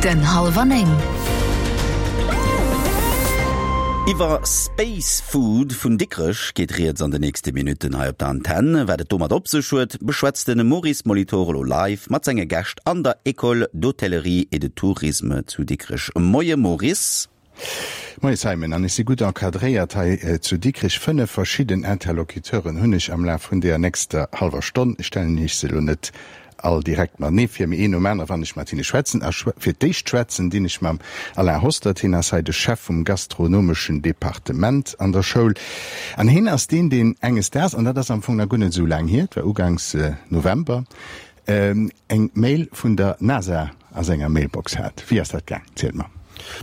Den Halwer 9. Iwwer Space Food vun Dikrech geet rieds an de nächste Minutten hei op der Antenn. Wat et domat op sech huet, beschwätzt de Maurice Molitor elo live mat senge Gäscht an der École d'Hôtellerie et de Tourisme zu Dikrech. Moie Maurice. Moie Simon, an ech si gutt encadréiert hei zu Dikrech. 5 verschidden Interlocuteuren hunn ech am Laf vun deeër nächster hallwer Stonn. Ech stellen Iech se elo net all direkt matenee vir, mee een nom anere wann ech mat hinne schwätzen. A fir d'éischt schwätzen dinn ech mam Alain Hostert. Hien ass hei de Chef vum gastronomeschen Departement an der Schoul. An hien ass deen, deen enges Daags, an dat ass am Fong nach guer net esou laang hier, et war ugangs November, Eng Mail vun der NASA a senger Mailbox hat. Wéi ass dat gaang? Zielt mer.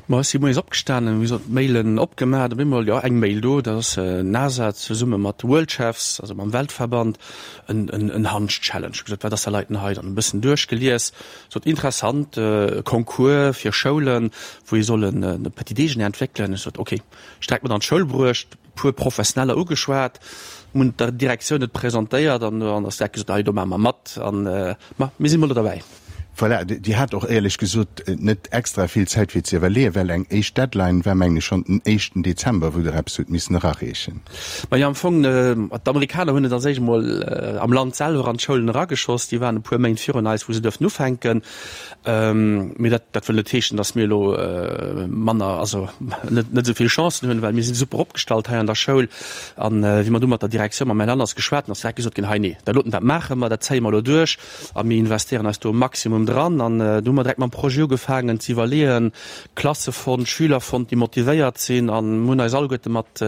Ma ech si moies opgestanen, hu gesot, d'Mailen opgemaach, op eemol, jo, eng Mail do, dat ass NASA zesumme mat Worldchefs, also mam Weltverband, en, en, en Hansch-Challenge. Hu gesot, wat ass dat leiten hei? Dann e bëssen duerchgelies, sot, interessant, e Concours fir Schoulen, wou ee soll en e Petit Déjeuner entwéckelen. Ech sot, ok, ech direkt mat an d'Schoul bruecht. puer Professioneller ugeschwat, hunn der Direktioun et presentéiert an dann ass direkt gesot, hei do maache mer mat an ma mir si mol do derbäi. Voilà, Dir hat och éierlech gesot net extra vill Zäit fir ze iwwerleeën, well eng éischt Deadline war mengen ech schonn den éischten Dezember, wou Der eppes hutt missen erareechen. Majo, am Fong, d'Amerikaner hunn et als éischt emol am Land selwer an d'Schoulen erageschoss, déi waren e puer Méint virun eis, wou se duerften ufänken. Mee dat, dat wëll net heeschen, datt mir elo manner, also net, net esou vill Chancen hunn, well mir si super opgestallt hei an der Schoul. An wéi mer du mat der Direktioun, mam Här Lanners geschwat hunn, ass direkt gesot ginn, hei nee, dat doten, dat maache mer, dat zéie mer elo duerch a mir investéieren eis do e Maximum dran. An du hu mer direkt mam Projet ugefaangen ze iwwerleeën, Klasse fonnt, Schüler fonnt, déi motivéiert sinn an hunn eis alleguerte mat,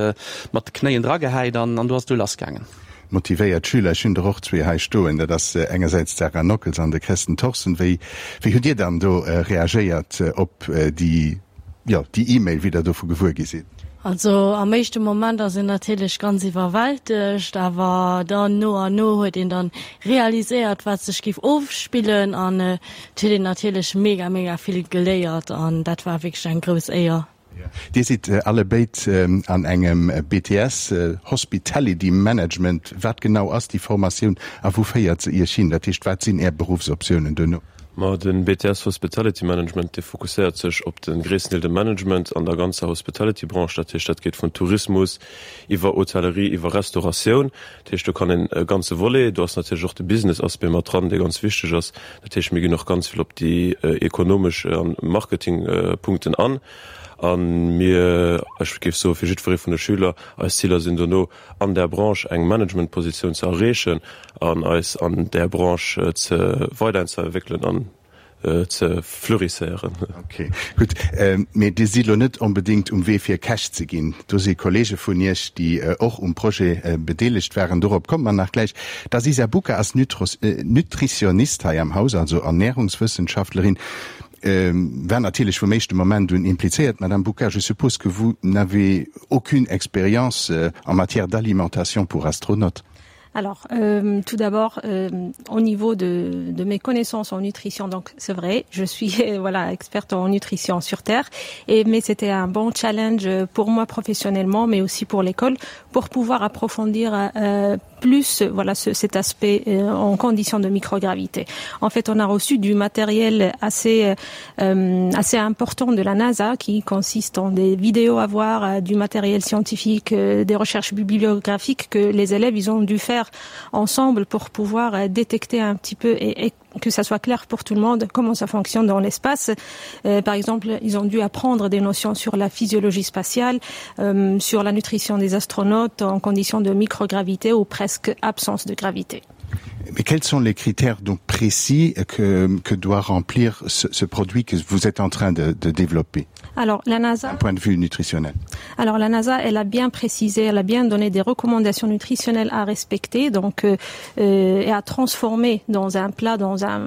mat de Knéien dragehäit an an du ass et du lassgaangen. Motivéiert Schüler, ech hunn der och zwee hei stoen, dat ass engersäits d'Sarah Nockels an de Kresten Thorsen. Wéi, wéi hutt Dir dann do reagéiert op déi, jo, déi E-Mail, wéi Der dovu gewuer gi sidd? Also am éischte Moment ass een natierlech ganz iwwerwältegt, awer dann no an no huet een dann realiséiert, wat sech géif ofspillen an et huet een natierlech mega, mega vill geléiert an dat war wierklech eng grouss Éier. Dir sidd allebéid an engem BTS Hospitality Management. Wat genau ass déi Formatioun a wou féiert se Iech hin? Dat heescht, wat sinn Är Beruffsoptiounen duerno? Ma de BTS Hospitality Management, dee fokusséiert sech op de gréissten Deel de Management an der ganzer Hospitality-Branche. Dat heescht, dat geet vun Tourismus iwwer Hotellerie, iwwer Restauratioun. Dat heescht, do kann een e ganze Volet, do ass natierlech och de Business-Aspect mat dran, dee ganz wichteg ass. Dat heescht, mir ginn och ganz vill op déi ekonomesch a Marketingpunkten an. A mir, ech géif soen, fir jiddweree vun de Schüler, eis Ziler sinn dono, an där Branche eng Managementpositioun ze erreechen an eis an där Branche ze weiderentwéckelen an ze fleurisséieren. Ok, gutt. Mee Dir sidd elo net onbedéngt um Wee fir Käch ze ginn. Do si Kollege vun Iech, déi och um Projet bedeelegt waren. Dorop komme mer nach gläich. D'Aziza Bouka ass Nutritionist hei am Haus, also Ernährungswëssenschaftlerin, war natierlech vum éischte Moment un implizéiert. Madame Bouka, je suppose que vous n'avez aucune expérience en matière d'alimentation pour astronautes? Alors, euh, tout d'abord, euh, au niveau de, de mes connaissances en nutrition, donc c'est vrai, je suis voilà, experte en nutrition sur Terre, et, mais c'était un bon challenge pour moi professionnellement, mais aussi pour l'école, pour pouvoir approfondir euh, plus voilà, ce, cet aspect euh, en conditions de microgravité. En fait, on a reçu du matériel assez, euh, assez important de la NASA qui consiste en des vidéos à voir, euh, du matériel scientifique, euh, des recherches bibliographiques que les élèves ils ont dû faire ensemble pour pouvoir euh, détecter un petit peu et, et que ça soit clair pour tout le monde comment ça fonctionne dans l'espace. Euh, par exemple, ils ont dû apprendre des notions sur la physiologie spatiale, euh, sur la nutrition des astronautes en conditions de microgravité ou presque absence de gravité. Mais quels sont les critères donc précis que, que doit remplir ce, ce produit que vous êtes en train de, de développer Alors la NASA d'un point de vue nutritionnel. Alors la NASA elle a bien précisé, elle a bien donné des recommandations nutritionnelles à respecter donc euh, euh, et à transformer dans un plat dans un,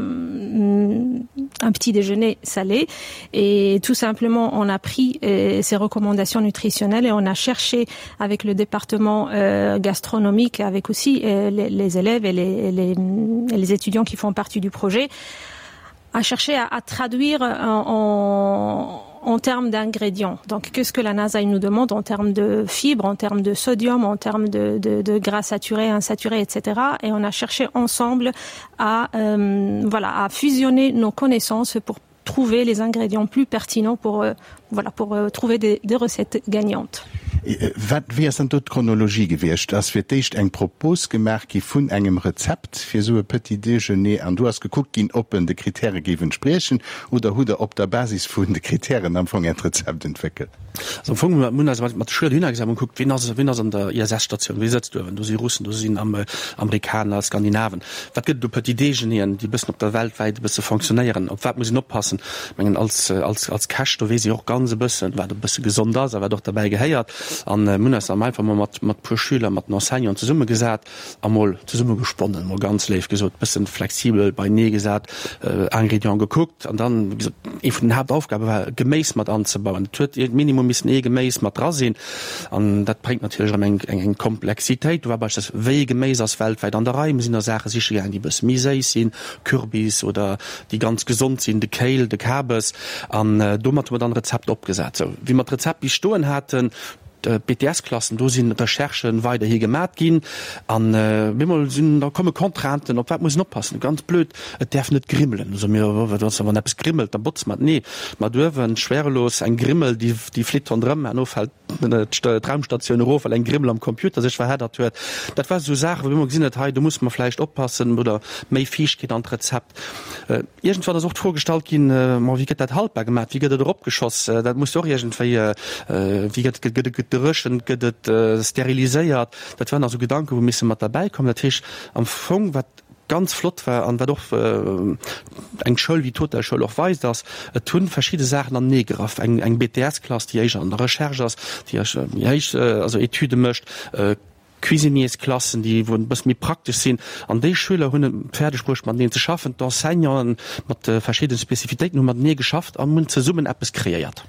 un petit déjeuner salé et tout simplement on a pris euh, ces recommandations nutritionnelles et on a cherché avec le département euh, gastronomique avec aussi euh, les, les élèves et les, les, les étudiants qui font partie du projet à chercher à, à traduire en, en. en termes d'ingrédients. Donc qu'est-ce que la NASA il nous demande en termes de fibres, en termes de sodium, en termes de, de, de gras saturé, insaturé, etc. Et on a cherché ensemble à, euh, voilà, à fusionner nos connaissances pour trouver les ingrédients plus pertinents pour, euh, voilà, pour euh, trouver des, des recettes gagnantes. Äh, wat, wéi ass dann do d'Chronologie gewiescht? Ass fir d'éischt eng Propos gemaach gi vun engem Rezept fir esou e Petit Déjeuner an du ass gekuckt ginn, ob en de Kritäre géif entspriechen oder hutt Der op der Basis vun de Kritären am Fong Äert Rezept entwéckelt? Also am Fong hu mir eis mat de Schüler dohinner gesat an gekuckt, wien ass, wien ass an der ISS-Statioun, wie sëtzt uewen? Do si Russen, do sinn Amerikaner, Skandinaven. Wat gëtt et u Petit Déjeuneren, déi e bëssen op der weltwäit e bësse fonctionnéieren? Op wat muss een oppassen? Ech mengen, als, als, als Käch, do weess ee och ganz e bëssen, wat e bësse gesond ass a wat och derbäi gehéiert. An mir hunn eis dann einfach mol mat, mat puer Schüler, mat den Enseignanten zesummegesat a mol zesummegesponnen, mol ganz léif gesot, bëssen flexibel beinee gesat, Ingrédienten gekuckt. An dann, wéi gesot, ee vun den Haaptaufgabe war, Geméis mat anzebauen. Et huet minimum missen ee Geméis mat dra sinn. An dat bréngt natierlech erëm eng, eng Komplexitéit. Do war beispillsweis, wéi ee Geméis ass weltwäit an der Rei. Mir sinn da Saache siche gaangen, déi e bësse méi séiss sinn, Kürbis, oder déi ganz gesond sinn, de Kale, de Kabes. An domat hu mer dann e Rezept opgesat. Sou, wéi mer d'Rezept bis stoen haten, d'BTS-Klassen, do si Recherchë weiderhi gemat ginn. An op eemol sinn, da komme Contrainten, op wat muss een oppassen? Ganz blöd, et däerf net grimmelen. Da soe mir, wat ass, wann eppes grimmelt, da botze mer et. Nee, mat uewen, schwerelos, eng Grimmel, déi, déi flitt ronderëm, herno fält d'Raumstatioun erof, well eng Grimmel am Computer sech verheddert huet. Dat war esou Saachen, wou mir emol gesinn huet, hei do musse mer vläicht oppassen oder méi Fiichtkeet an d'Rezept. Iergendwann ass och d'Fro gestallt ginn, ma wéi gëtt dat haltbar gemaach, wéi gëtt et eropgeschoss? Dat muss jo och iergendwéi, wéi gëtt, gëtt et gedréchent, gëtt et steriliséiert? Dat waren also Gedanken, wou misse mat derbäi kommen. Dat heescht am Fong, wat ganz flott war an wat och eng Schoul wéi d'Hotelschoul och weist, ass, et hu verschidde Saachen anenee geraff. Eng, eng BTS-Klass, déi éischer an der Recherche ass, déi éischer méi héich, also Etüde mécht, Cuisiniersklassen, déi wou e bësse méi praktesch sinn. An déi Schüler hunn et fäerdeg bruecht, mateneen ze schaffen. D'Enseignanten mat verschiddene Spezifitéiten hu matenee geschafft an hunn zesummen eppes kreéiert.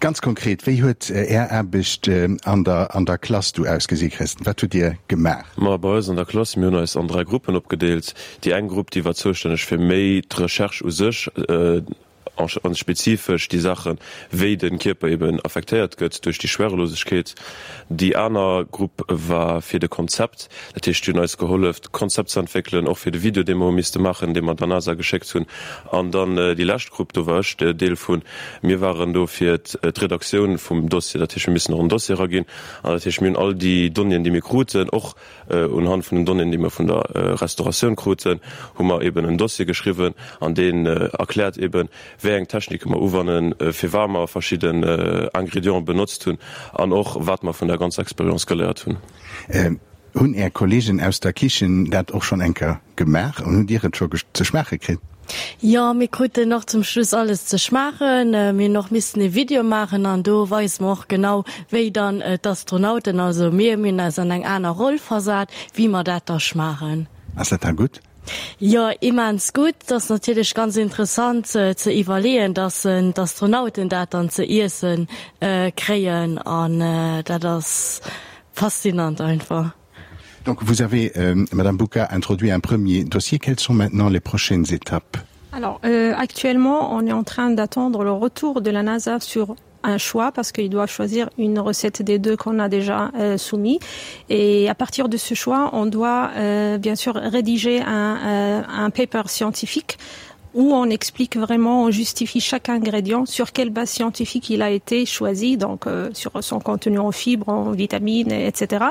Ganz konkret, wéi huet Är Aarbecht an der an der Klass du ausgesi, Christen? Wat hutt Dir gemaach? Ma bei eis an der Klass, mir hunn eis an 3 Gruppen opgedeelt. Déi eng Grupp, déi war zoustänneg fir méi d'Recherche u sech, an spezifesch déi Saachen, wéi de Kierper eben affektéiert gëtt duerch déi Schwerelosegkeet. Déi aner Grupp war fir de Konzept, dat heescht, déi hunn eis gehollef, d'Konzept ze entwéckelen, och fir de Video, dee mer hu misste maachen, dee mer der NASA geschéckt hunn. An dann déi lescht Grupp, do war ech Deel vun, mir waren do fir d'Redaktioun vum Dossier, dat heescht, mir missen och en Dossier eraginn. An dat heescht, mir hunn all déi Donnéeën, déi mir kruten, och unhand vun den Donnéeën, déi mir vun der Restauratioun kruten, hu mer eben en Dossier geschriwwen an deen erkläert eben, wéi eng Technike mer uwannen, firwat mer verschidden Ingrédienten benotzt hunn an och wat mer vun der ganzer Expérience geléiert hunn. Hunn Är Kollegen aus der Kichen dat och schonn eng Kéier gemaach an hutt Dir et scho ze schmaache kritt? Jo, mir kruten och zum Schluss alles ze schmaachen. Mir hunn och missen e Video maachen an do weise mer och genau, wéi dann d'Astronauten, also mir, mir hunn eis an eng aner Roll versat, wéi mer dat da schmaachen. Ass dat da gutt? Jo, immens gutt. Et ass natierlech ganz interessant ze iwwerleeën, dass d'Astronauten dat dann ze iesse kréien an dat ass faszinant einfach. Donc vous avez euh, Madame Bouka introduit un premier dossier. Quelles sont maintenant les prochaines étapes? Alors euh, actuellement, on est en train d'attendre le retour de la NASA sur un choix parce qu'il doit choisir une recette des deux qu'on a déjà euh, soumis et à partir de ce choix on doit euh, bien sûr rédiger un, euh, un paper scientifique où on explique vraiment on justifie chaque ingrédient sur quelle base scientifique il a été choisi donc euh, sur son contenu en fibres en vitamines etc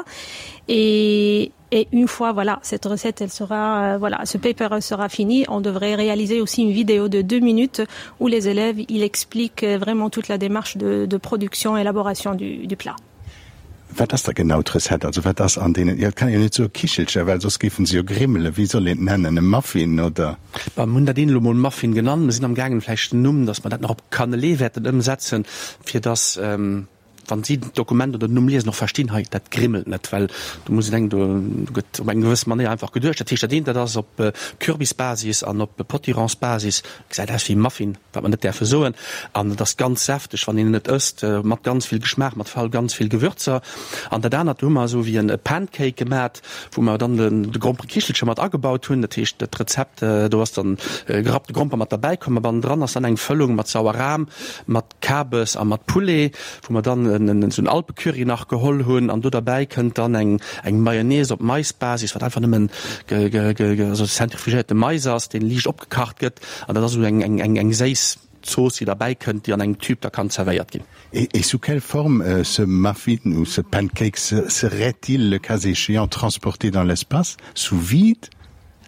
et Et une fois voilà cette recette elle sera euh, voilà ce paper sera fini on devrait réaliser aussi une vidéo de deux minutes où les élèves il explique euh, vraiment toute la démarche de, de production élaboration du, du plat. Wat ass da genau d'Recette? Also wat ass an deenen, jo et kann een jo net soe Kichelcher, well soss géifen se jo grimmelen. Wéi soll een et nennen? E Muffin oder? Bon, mir hunn dat een elo mol Muffin genannt. Mir sinn am gaangen vläicht den Numm, datt mer dat nach op Cannelé wäerten ëmsetzen, fir datt. Wann si d'Dokument oder den Numm liesen, och verstinn, hei, dat grimmelt net, well do muss een denken, do gëtt op eng gewëss Manéier einfach geduecht. Dat heescht, dat eent, dat ass op Kürbisbasis an op Potironsbasis, gesäit aus wéi Muffin, wat mer net däerfe soen, an et ass ganz säfteg, wann een et ësst, mat ganz vill Geschmaach, mat vor ganz vill Gewürzer. An dat anert, do hu mer esou wéi e Pancake gemat, wou mer dann de Gromperekichelche mat agebaut hunn. Dat heescht, dat Rezept, do ass dann gerappte Gromper mat derbäi komm, a bannendran ass dann eng Fëllung mat Sauerram, mat Kabes a mat Poulet, wou mer dann esou en Alpecurry nach geholl hunn an do derbäi kënnt dann eng eng Mayonnaise op Maisbasis, wat einfach nëmmen also zentrifugéierte Mais ass, deen liicht opgekacht gëtt an dat ass esou eng eng eng eng séiss Zooss, déi derbäi kënnt, déi an engem Tube da kann zerwéiert ginn. Et sous quelle forme ce muffin ou ce pancake serait-il, le cas échéant, transporté dans l'espace, sous vide?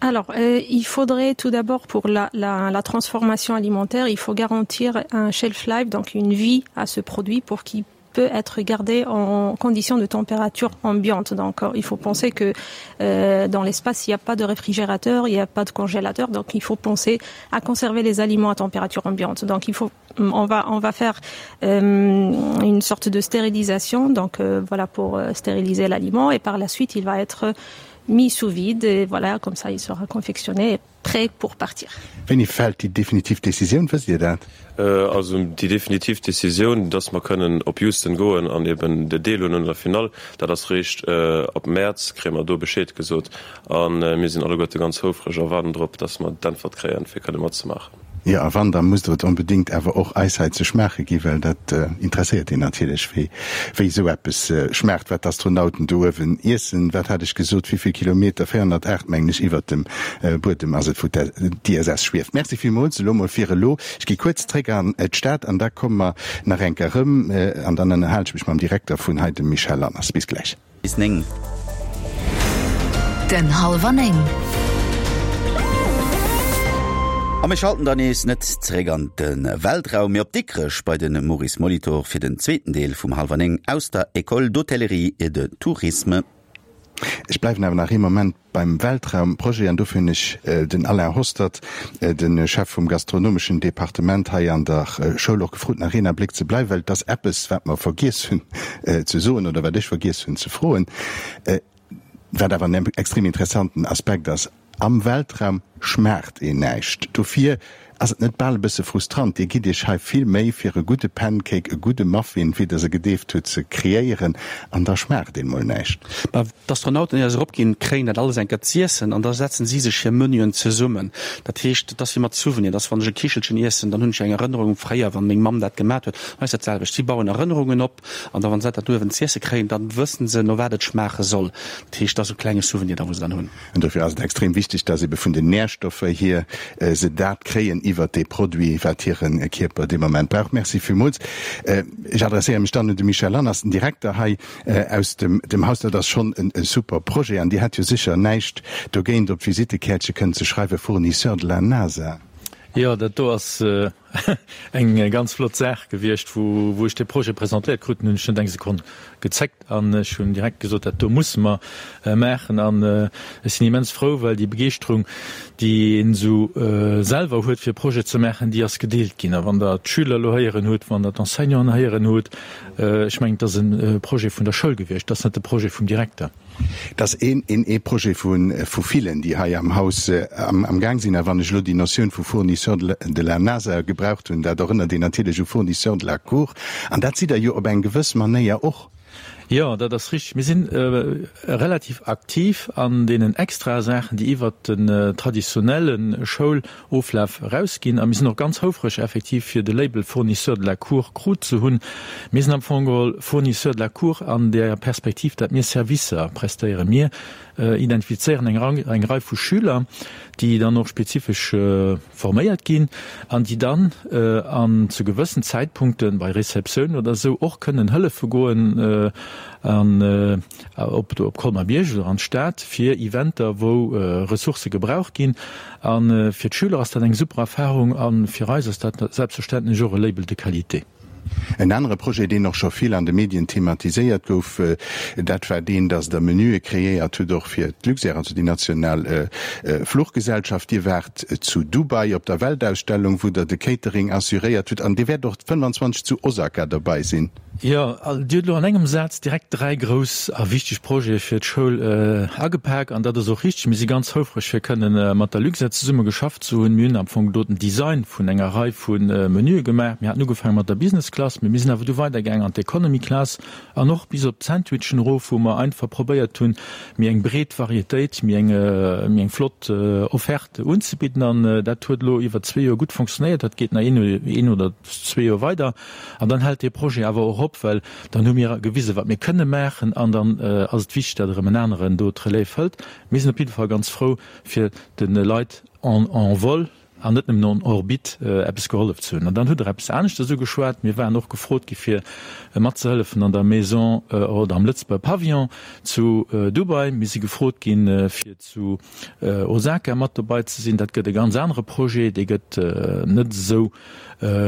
Alors, euh, il faudrait tout d'abord pour la, la, la transformation alimentaire, il faut garantir un shelf life, donc une vie à ce produit pour qu'il peut être gardé en conditions de température ambiante. Donc euh, il faut penser que euh, dans l'espace, il n'y a pas de réfrigérateur, il n'y a pas de congélateur, donc il faut penser à conserver les aliments à température ambiante. Donc il faut on va, on va faire euh, une sorte de stérilisation donc euh, voilà pour euh, stériliser l'aliment et par la suite il va être euh, mis sous vide et voilà comme ça il sera confectionné et prêt pour partir. Wéini fält déi definitiv Decisioun, wësst Dir dat? Also déi definitiv Decisioun, dass mer kënnen op Houston goen an eben deelhuelen un der Finall, dat ass réischt ab Mäerz, kréie mer do Bescheed gesot. A mir sinn alleguerte ganz houfreg a waarden drop, dass mer d'Äntwert kréien, fir kënne matzemaachen. Jo, a wann, da musst Der et onbedéngt awer och eis hei ze schmaache gi, well dat interesséiert een natierlech, wéi wéi esou eppes schmaacht, wat d'Astronauten do uewen iessen. Wat hat ech gesot, wéi vill Kilometer? 408, mengen ech, iwwert dem Buedem ass et, wou d'ISS schwieft. Merci villmools elo mol fir elo. Ech gi kuerz zréck an d'Stad an da komme mer nach eng Kéier erëm an dann ënnerhalen ech mech mam Direkter vun hei, dem Michel Lanners. Bis gläich. Bis 9. Den Halwer 9. A mir schalten dann nees net zeréck an de Weltraum, mee op Dikrech bei de Maurice Molitor fir den zweeten Deel vum Halwer 9 aus der École d'Hôtellerie et de Tourisme. Ech bleiwen awer nach ee Moment beim Weltraumprojet an dofir hunn ech den Alain Hostert, de Chef vum gastronomeschen Departement hei an der Schoul och gefrot, nach een Abléck ze bleiwen, well et ass eppes, wat mer vergiess hunn ze soen oder wat ech vergiess hunn ze froen, wat awer en extrem interessanten Aspekt ass, Am Weltraum schmaacht een näischt. Dofir Ass et net bal e bësse frustrant? Dir gitt Iech hei vill Méi fir e gudde Pancake, e gudde Muffin, wéi Der se gedeeft hutt, ze kreéieren, an da schmaacht een mol näischt. Mä d'Astronauten, éier se eropginn, kréien dat alles eng Kéier z'iessen an da setzen si sech hir Menüen zesummen. Dat heescht, et ass wéi mat Souvenir, dass wann ech e Kichelchen iessen, dann hunn ech eng Erënnerung u fréier, wann meng Mamm dat gemat huet. Hei ass dat selwecht, si bauen Erënnerungen op an da wann se dat uewen z'iesse kréien, dann wëssen se, no wat et schmaache soll. Dat heescht, et ass e klenge Souvenir da wou se dann hunn. An dofir ass et extrem wichteg, dass ebe vun den Nährstoffer hier se dat kréien iwwert dee Produit, wat hire Kierper dee Moment brauch. Merci villmools. Ech adresséiere mech dann un de Michel Lanners, den Direkter hei aus dem Haus. Dat ass schonn e super Projet an Dir hätt jo sécher näischt dogéint, op d'Visittekäertche kënnen ze schreiwen, Fournisseur de la NASA. Jo, dat do ass Eng ganz flott Saach gewiescht. Wou ech dee Projet presentéiert krut hunn, hunn ech net eng Sekonn gezéckt an ech hunn direkt gesot, dat do musse mer maachen. An ech sinn immens frou, well déi Begeeschterung, déi een esou selwer huet, fir e Projet ze maachen, déi ass gedeelt ginn. A wann Der d'Schüler elo héieren hutt, wann Der d'Enseignanten héieren hutt, ech mengen, et ass e Projet vun der Schoul gewiescht, et ass net de Projet vum Direkter. Et ass een een Projet vu villen, déi hei am Haus am Gaang sinn. A wann ech elo déi Notioun vu Fournisseur de la NASA gebraucht hunn, dat erënnert een natierlech u Fournisseur de la Cour. An dat sidd Der jo op eng gewëss Manéier och. Jo, dat ass richtig. Mir si relativ aktiv an deenen extrae Saachen, déi iwwert den traditionelle Schouloflaf erausginn. A mir sinn och ganz houfreg effektiv, fir de Label Fournisseur de la Cour krut ze hunn. Mir sinn am Fong geholl Fournisseur de la Cour an där Perspektiv, dat mir Servicer prestéieren. Mir identifizéieren eng Rei vu Schüler, déi dann och spezifesch forméiert ginn an déi dann an zu gewëssen Zäitpunkten, bei Receptioun oder esou, och kënnen hëllefe goen an op op Colmar-Bierg oder an d'Stad fir Eventer, wou Ressourcë gebraucht ginn. A fir d'Schüler ass dat eng super Erfahrung a fir eis ass dat selbstverständlech och e Label de qualité. En anere Projet, deen och scho vill an de Medien thematiséiert gouf, dat war deen, dass Der Menüe kreéiert hutt och fir d'Luxair, also déi national Fluchgesellschaft. Dir waart zu Dubai op der Weltausstellung, wou Der de Catering assuréiert hutt an Dir wäert och 25 zu Osaka dobei sinn. Jo, Dir hutt elo an engem Saz direkt 3 grouss a wichteg Projete fir d'Schoul agepak an dat ass och richteg. Mir si ganz houfreg fir kënnen mat der Luxair zesumme geschafft ze hunn. Mir hunn am Fong do den Design vun enger Rei vu Menüe gemaach. Mir haten ugefaange mat der Business Class, mee mir sinn awer du weidergaang an d'Economy Class an och bis op d'Sandwichen erof, wou mer einfach probéiert hunn, méi eng breet Varietéit, méi eng, méi eng flott Offerte unzebidden. An dat huet elo iwwer zwee Joer gutt fonctionnéiert. Dat geet nach een, een oder zwee Joer weider. An dann hält dee Projet awer och op, well dann hu mir gewisen, wat mir kënne maachen. An dann ass et wichteg, datt erëm en aneren do d'Relève hëlt. Mir sinn op jidde Fall ganz frou, fir de Leit en en vol an net nëmmen en orbite eppes gehollef ze hunn. An dann hutt Der eppes aneschtes ugeschwat. Mir waren och gefrot gi fir matzehëllefen an der Maison oder am Lëtzebuerger Pavillon zu Dubai. Mir si gefrot ginn, fir zu Osaka mat dobei ze sinn. Dat gëtt e ganz anere Projet, dee gëtt net esou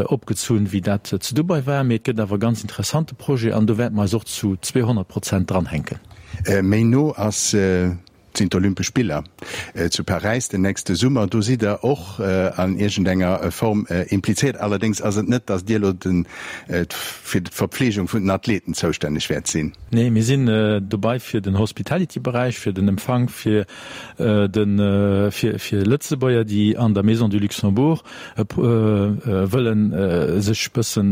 opgezunn, wéi dat zu Dubai war, mee et gëtt awer e ganz interessante Projet an do wäerte mer eis och zu 200 Prozent dranhänken. Méi no ass sinn d'Olympesch Spiller zu Paräis den nächste Summer. Do sidd Der och an iergendenger Form implizéiert. Allerdéngs ass et net, datt Dir elo fir d'Verpflegung vun den Athleten zoustänneg wäert sinn. Nee, mir sinn dobei fir den Hospitality-Beräich, fir den Empfang, fir de fir Lëtzebuerger, déi an der Maison du Luxembourg wëllen sech bëssen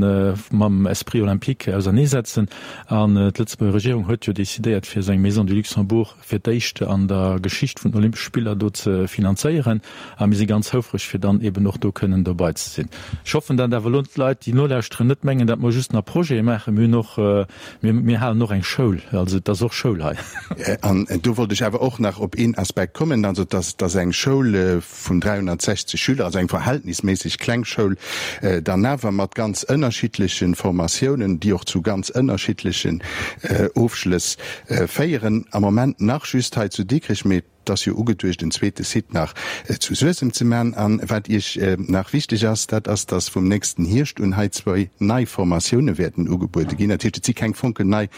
mam Esprit olympique auserneesetzen. An d'Lëtzebuerger Regierung huet jo decidéiert, fir esou eng Maison du Luxembourg fir d'éischt an der Geschicht vun den Olympesche Spiller do ze finanzéieren. A mir si ganz houfreg, fir dann eben och do kënnen dobei ze sinn. Ech hoffen, datt awer elo d'Leit, déi nolauschteren, net mengen, datt mer just nach Projete maachen. Mir hunn och, mir, mir halen och eng Schoul. Also et ass och Schoul hei. An do wollt ech awer och nach op een Aspekt kommen, also dass, dass eng Schoul vun 360 Schüler, also eng verhältnisméisseg kleng Schoul, dann awer mat ganz ënnerschiddleche Formatiounen, déi och zu ganz ënnerschiddlechen Ofschlëss féieren, am Moment nach just hei zu Dikrech, mee et ass jo ugeduecht, en zweete Site nach zu Suessem ze man. An wat Iech nach wichteg ass, dat ass, dass vum nächsten Hierscht un hei zwou nei Formatioune wäerten ugebuede ginn. Dat heescht, et si keng fonkelnei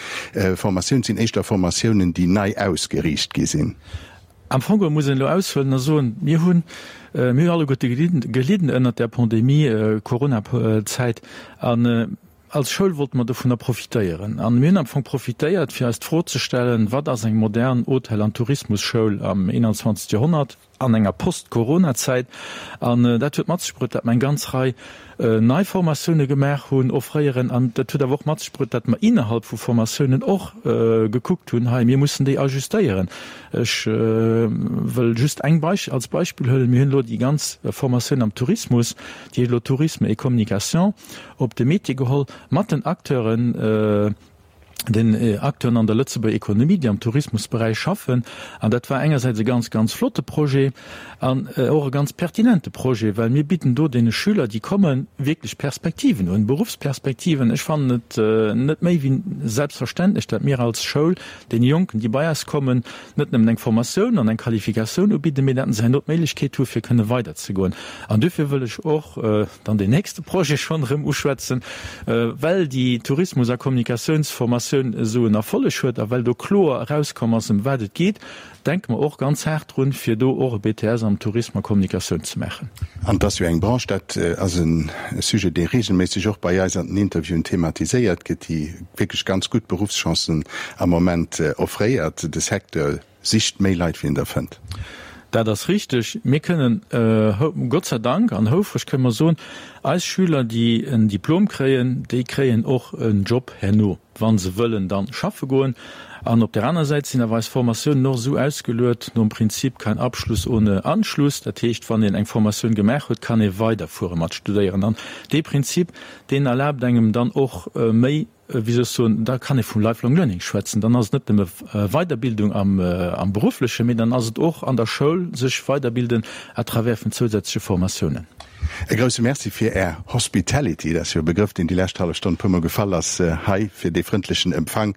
Formatiounen, et sinn éischter Formatiounen, déi nei ausgeriicht gi sinn. Am Fong geholl muss een elo aushuelen a soen, mir hunn, mir hunn alleguerte gelidden ënnert där Pandemie, Coronazäit, an als Schoul wollte mer dovunner profitéieren. An mir hunn am Fong profitéiert, fir eis d'Fro ze stellen, Wat ass eng modern Hotel an Tourismusschoul am 21. Joerhonnert, an enger Post-Corona-Zäit? An dat huet mat sech bruet, datt mer eng ganz Rei nei Formatioune gemaach hunn, offréieren. An dat huet awer och mat sech bruet, datt mer innerhalb vu Formatiounen och gekuckt hunn, hei, mir mussen déi ajustéieren. Ech wëll just eng Beisch als Beispill huelen, Mir hunn elo déi ganz Formatioun am Tourismus, déi heescht elo Tourisme et Communication, op de Métier geholl mat den Acteuren, den Acteuren an der Lëtzebuerger Ekonomie, déi am Tourismusberäich schaffen. An dat war engersäits e ganz, ganz flotte Projet an och e ganz pertinente Projet, well mir bidden do deene Schüler, déi kommen, wierklech Perspektiven un, Beruffsperspektiven. Ech fannen et net méi wéi selbstverständlech, datt mir als Schoul deene Jonken, déi bei eis kommen, net nëmmen eng Formatioun an eng Qualifikatioun ubidden, mee datt se herno d'Méiglechkeet hu fir kënne weiderzegoen. An duerfir wëll ech och dann deen nächste Projet schonn erëm uschwätzen, well déi Tourismus a Kommunikatiounsformatioun esou en Erfolleg huet a well do kloer erauskomm ass, ëm wat et geet, denke mer och ganz haart drun, fir do och e BTS am Tourisme a Kommunikatioun ze maachen. An et ass jo eng Branche, dat ass e Sujet, dee regelméisseg och bei eis an den Interviewen thematiséiert gëtt, déi wierklech ganz gutt Beruffschancen am Moment offréiert. De Secteur Sicht méi Leit wéi en der fënnt. Dat ass richteg. Mir kënnen, Gott sei Dank an houfreg kënne mer soen, eis Schüler, déi en Diplom kréien, déi kréien och en Job herno, wa se wëllen dann schaffe goen. An op där aner Säit sinn awer eis Formatiounen och esou ausgeluet nom Prinzip kein Abschluss ohne Anschluss. Dat heescht, wann een eng Formatioun gemaach huet, kann ee weiderfuere mat studéieren. An dee Prinzip, deen erlaabt engem dann och méi, wéi soll ech soen, da kann ee vum Lifelong Learning schwätzen. Dann ass et net nëmme Weiderbildung am Berufflechen, mee dann ass et och an der Schoul sech weiderbilden à travers vun zousätzleche Formatiounen. E grousse Merci fir Är Hospitality, dat ass jo e Begrëff, deen déi lescht hallef Stonn e puermol gefall ass hei, fir dee frëndlechen Empfang.